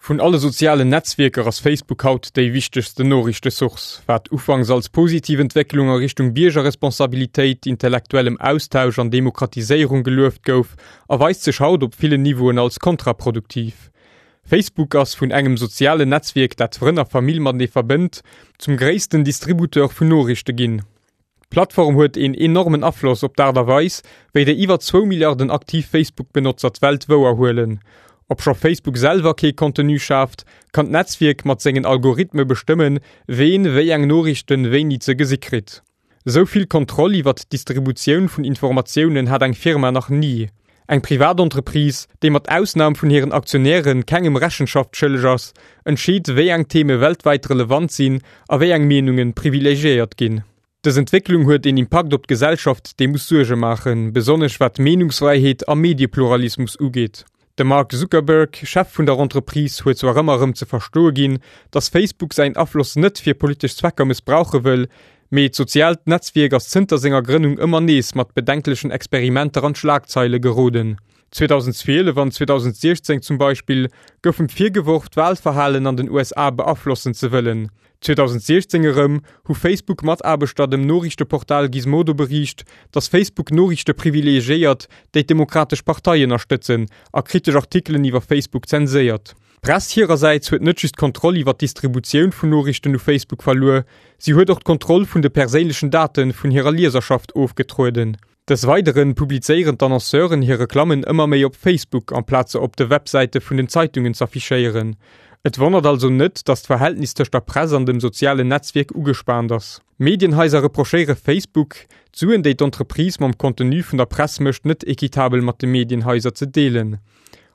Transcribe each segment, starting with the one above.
Vun alle sozialen Netzwierker ass Facebook haut déi wichtegsten Noriichtesource. Wat ufanks als positiv Entwécklung a Richtung Biergerresponsabilitéit, intellektuellem Austausch an Demokratiséierung gelueft gouf, erweist sech haut op villen Niveauen als kontraproduktiv. Facebook ass vun engem sozialen Netzwierk, dat Frënn a Famill matenee verbënnt, zum gréissten Distributeur vun Noriichte ginn. D'Plattform huet een enormen Afloss op d'Aart a Weis, wéi déi iwwer zwou Milliarden aktiv Facebook-Benotzer d'Welt wouer huelen. Obscho Facebook selwer kee Contenu schaaft, kann d'Netzwierk mat sengen Algorithme bestëmmen, ween wéi eng Noriichten wéini ze gesi kritt. Esou vill Kontroll iwwert d'Distributioun vun Informatiounen hat eng Firma nach ni. Eng Privatentreprise, déi mat Ausnam vun hiren Aktionäre kengem Rechenschaft schëlleg ass, entscheet, wéi eng Theme weltwäit relevant sinn a wéi eng Meenunge privilegiéiert ginn. Dës Entwécklung huet een Impakt op d'Gesellschaft, dee muss Suerge maachen, besonnesch wat Meenungsfräiheet a Mediepluralismus ugeet. De Mark Zuckerberg, Chef vun der Entreprise, huet zwar ëmmer erëm ze verstoe ginn, datt Facebook säin Afloss net fir politesch Zwecker mëssbrauche wëll, Mee d'soziaalt Netzwierk ass zënter senger Grënnung ëmmer nees mat bedenklechen Experimenter an d'Schlagzeile geroden. 2012 an 2016 zum Beispill gouf em virgeworf, d'Walverhalen an den USA beaflossen ze wëllen. 2016 erëm hu Facebook-Mataarbechter dem Noriichteportal Gizmodo beriicht, datt Facebook Noriichte privilegiéiert, déi d'Demokratesch Partei ënnerstëtzen, a kritesch Artikelen iwwer Facebook zenséiert. D'Press hirersäits huet net just d'Kontroll iwwer d'Distributioun vun Noriichten u Facebook verluer, si huet och d'Kontroll vun de perséinlechen Date vun hirer Lieserschaft ofgetrueden. Des Weidere publizéieren d'Annonceuren hir Reklammen ëmmer méi op Facebook, amplaz se op de Websäite vun den Zeitungen z'affichéieren. Et wonnert also net, datt d'Verhältnis tëscht der Press an dem sozialen Netzwierk ugespaant ass. Medienhaiser reprochéiere Facebook, d'Suen, déi d'Entreprise mam Contenu vun der Press mécht, net equitabel mat de Medienhaiser ze deelen.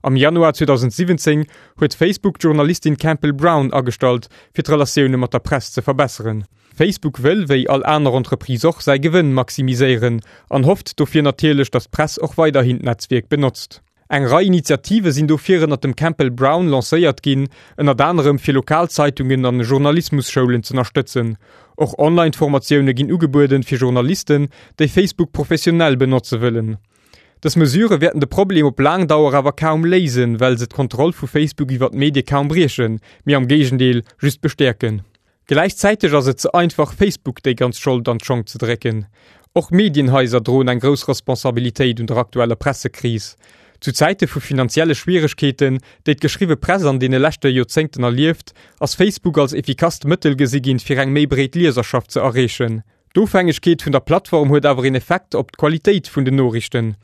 Am Januar 2017 huet Facebook d'Journalistin Campbell Brown agestallt, fir d'Relatioune mat der Press ze verbesseren. Facebook wëll, wéi all aner Entreprise och, säi Gewënn maximiséieren an hofft dofir natierlech, datt d'Press och weiderhin d'Netzwierk benotzt. Eng Rei Initiative sinn dofir ënnert dem Campbell Brown lancéiert ginn, ënnert anerem fir lokal Zeitungen an Journalismusschoulen z'ënnerstëtzen. Och Online-Formatioune ginn ugebueden fir Journalisten, déi Facebook professionell benotze wëllen. Dës Mesure wäerten de Problem op laang Dauer awer kaum léisen, well se d'Kontroll vu Facebook iwwer d'Medie kaum briechen, mee am Géigendeel just bestäerken. Gläichzäiteg ass et ze einfach, Facebook déi ganz Schold an d'Schong ze drécken. Och Medienhaiser droen eng grouss Responsabilitéit un der aktueller Pressekris. Zu Zäite vu finanzielle Schwieregkeeten, déi d'geschriwwe Press an deene leschte Joerzéngten erlieft, ass Facebook als effikasst Mëttel gesi ginn, fir eng méi breet Lieserschaft ze erreechen. D'Ofhängegkeet vun der Plattform huet awer een Effekt op d'Qualitéit vun den Noriichten.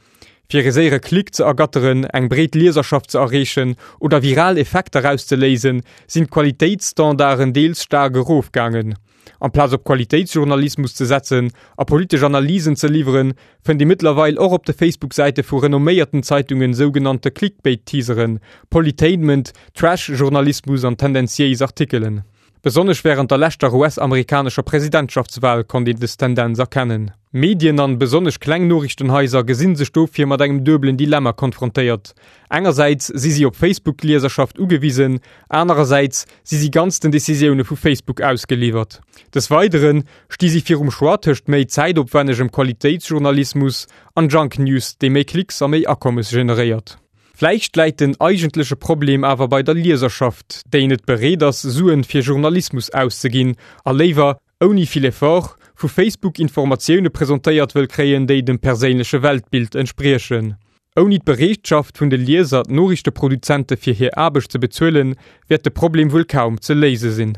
Fir ee séiere Klick ze ergatteren, eng breet Lieserschaft ze erreechen oder viral Effekter auszeléisen, sinn d'Qualitéitsstandarden deels staark erofgaangen. Amplaz op Qualitéitsjournalismus ze setzen a politesch Analysen ze liwweren, fënnt ee mëttlerweil och op de Facebook-Säite vu renomméierten Zeitungen sougenannte Clickbait-Teaseren, Politainment, Trash-Journalismus an tendenziéis Artikelen. Besonnesch wärend der leschter US-amerikanescher Presidentschaftswal konnt een des Tendenz erkennen. Medien an besonnesch kleng Noriichtenhaiser gesinn sech dofir mat engem duebelen Dilemma konfrontéiert, Engersäits si si op Facebook-Lieserschaft ugewisen, anerersäits si si ganz den Decisioune vu Facebook ausgeliwwert. Des Weidere sti si virum Choix tëscht méi zäitopwännegem Qualitéitsjournalismus an Junk News, dee méi Klicks a méi Akommes generéiert. Vläicht läit den eigentleche Problem awer bei der Lieserschaft, déi net bereet ass, Suen fir Journalismus auszeginn a léiwer, ouni vill Effort, vu Facebook Informatioune presentéiert wëll kréien, déi dem perséinleche Weltbild entspriechen. Ouni d'Bereetschaft vun de Lieser, d'Noriichteproduzente fir hir Aarbecht ze bezuelen, wäert de Problem wuel kaum ze léise sinn.